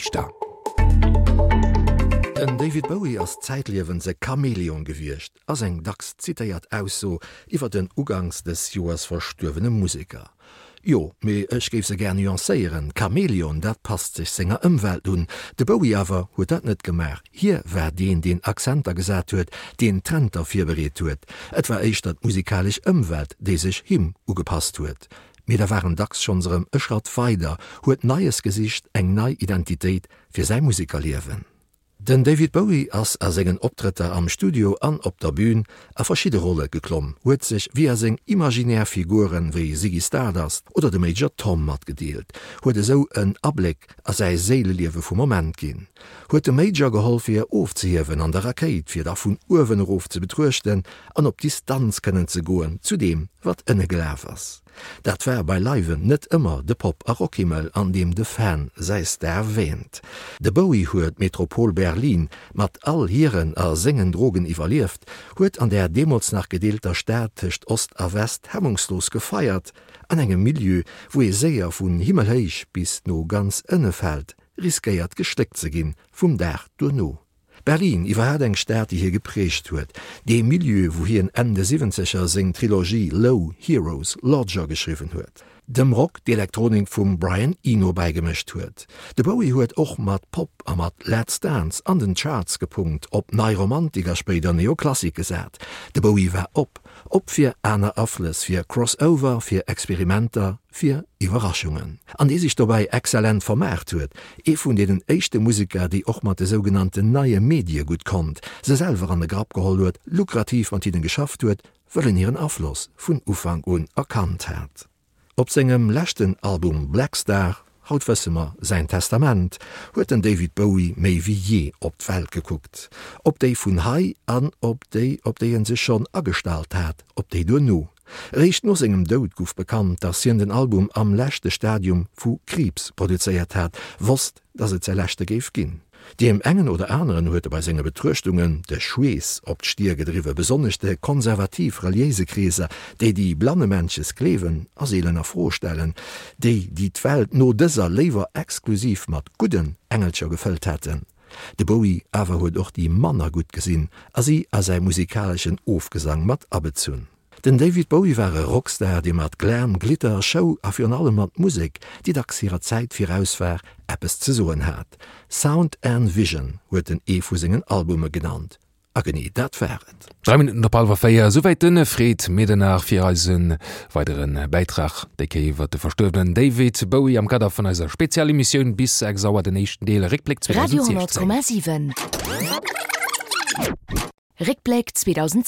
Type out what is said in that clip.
Richter. Den David Bowie ass zäitliewens e Chamäleon gewiescht, ass eng dacks zitéiert Ausso iwwer den uganks dës Joers verstuerwene Museker. Jo, mee ech géif se gär nuancéieren, Chamäleon, dat passt sech senger Ëmwelt un. De Bowie awer huet dat net gemaach. Hie war deen, deen Accenter gesat huet, deen Trenter virbereet huet. Et war éischter d'musikalesch Ëmwelt, déi sech him ugepasst huet. Mee da war en dacks schonns erëm e Schratt weider, huet Neies gesicht, eng nei Identitéit fir säi Musekerliewen. Den David Bowie ass a sengen Optrëtter am Studio an op der Bün a verschidde Rolle geklomm, huet sech via seng imaginär Figuren wéi Ziggy Stardust oder de Major Tom matgedeelt, huet esou en Abléck a säi Séileliewe vum Moment ginn, huet dem Major geholl fir ofzehiewen an der Rakéit, fir da vun uewen erof ze betruechten an op Distanz kënnen ze goen zu deem wat ënne gelaf ass. Dat war beileiwen net ëmmer de Pop a Rockhimmel, an deem de Fan säi Star wähnt. De Bowie huet d'Metropol Berlin mat all hiren a sengen Drogen iwwerlieft, huet an där deemools nach gedeelter Stad tëscht Ost a West hemmungslos gefeiert, an engem Milieu, wou ee séier vun himmelhéich bis no ganz ënne fält, riskéiert geschléckt ze ginn vum Dag duerno. Berlin, iwwerhaat eng Stad déi hie geprägt huet, dee Milieu wou hien Enn de Siwwenzeger seng Trilogie Low, Heroes, Lodger geschriwwen huet, dem Rock d'Elektronik vum Brian Eno bäigemëscht huet. De Bowie huet och mat Pop a mat Let's Dance an den Charts gepunkt, op Nei Romantik a spéider Neoklassik gesat. De Bowie war op, op fir aner Aflëss, fir Crossover, fir Experimenter, fir Iwwerraschungen, an dee sech dobäi exzellent vermaart huet, ee vun deenen éischte Museker, déi och mat de sougenannten neie Medie gutt konnt, se selwer an de Grapp geholl huet, lukrativ mat hinnen geschafft huet, wëll en hiren Afloss vun Ufank un erkannt hat. Op sengem leschten Album Blackstar, haut wësse mer, säin Testament, huet den David Bowie méi wéi jee op d'Welt gekuckt, op déi vun hei an op déi, op déi en sech schonn agestallt hat, op déi duerno. Eréischt no sengem Doud gouf bekannt, dass hien den Album am leschte Stadium vu Kriibs produzéiert hat, wosst, dass et säi leschte géif ginn. Deem engen oder aneren huet e bei senge Betruechtungen de Schweess op d'Stier gedriwwen, besonnesch de konservativ-reliéise Kreeser, déi déi blannemännches gleewen a seelen a Fro stellen, déi, déi d'Welt no dëser léiwer exklusiv mat gudden Engelcher gefëllt hätten. De Bowie awer huet och déi manner gutt gesinn a si a säi musikaleschen Ofgesang mat abezunn. Den David Bowie war e Rockstar, dee mat Glam, Glitter, Show a virun allem mat Musek, déi dacks hirer Zäit viraus war, eppes ze soen hat. Sound and Vision huet en ee vu sengen Albume genannt. A genee dat war et. 3 Minutten op hallwer 4, esouwäit de Fred Medernach fir eise weidere Bäitrag, déi Kéier iwwer de verstuerwenen David Bowie am Kader vun eiser Spezialemissioun bis 6 Auer, den éischten Deel Réckbléck Radio 2016. 10,7 Réckbléck 2016.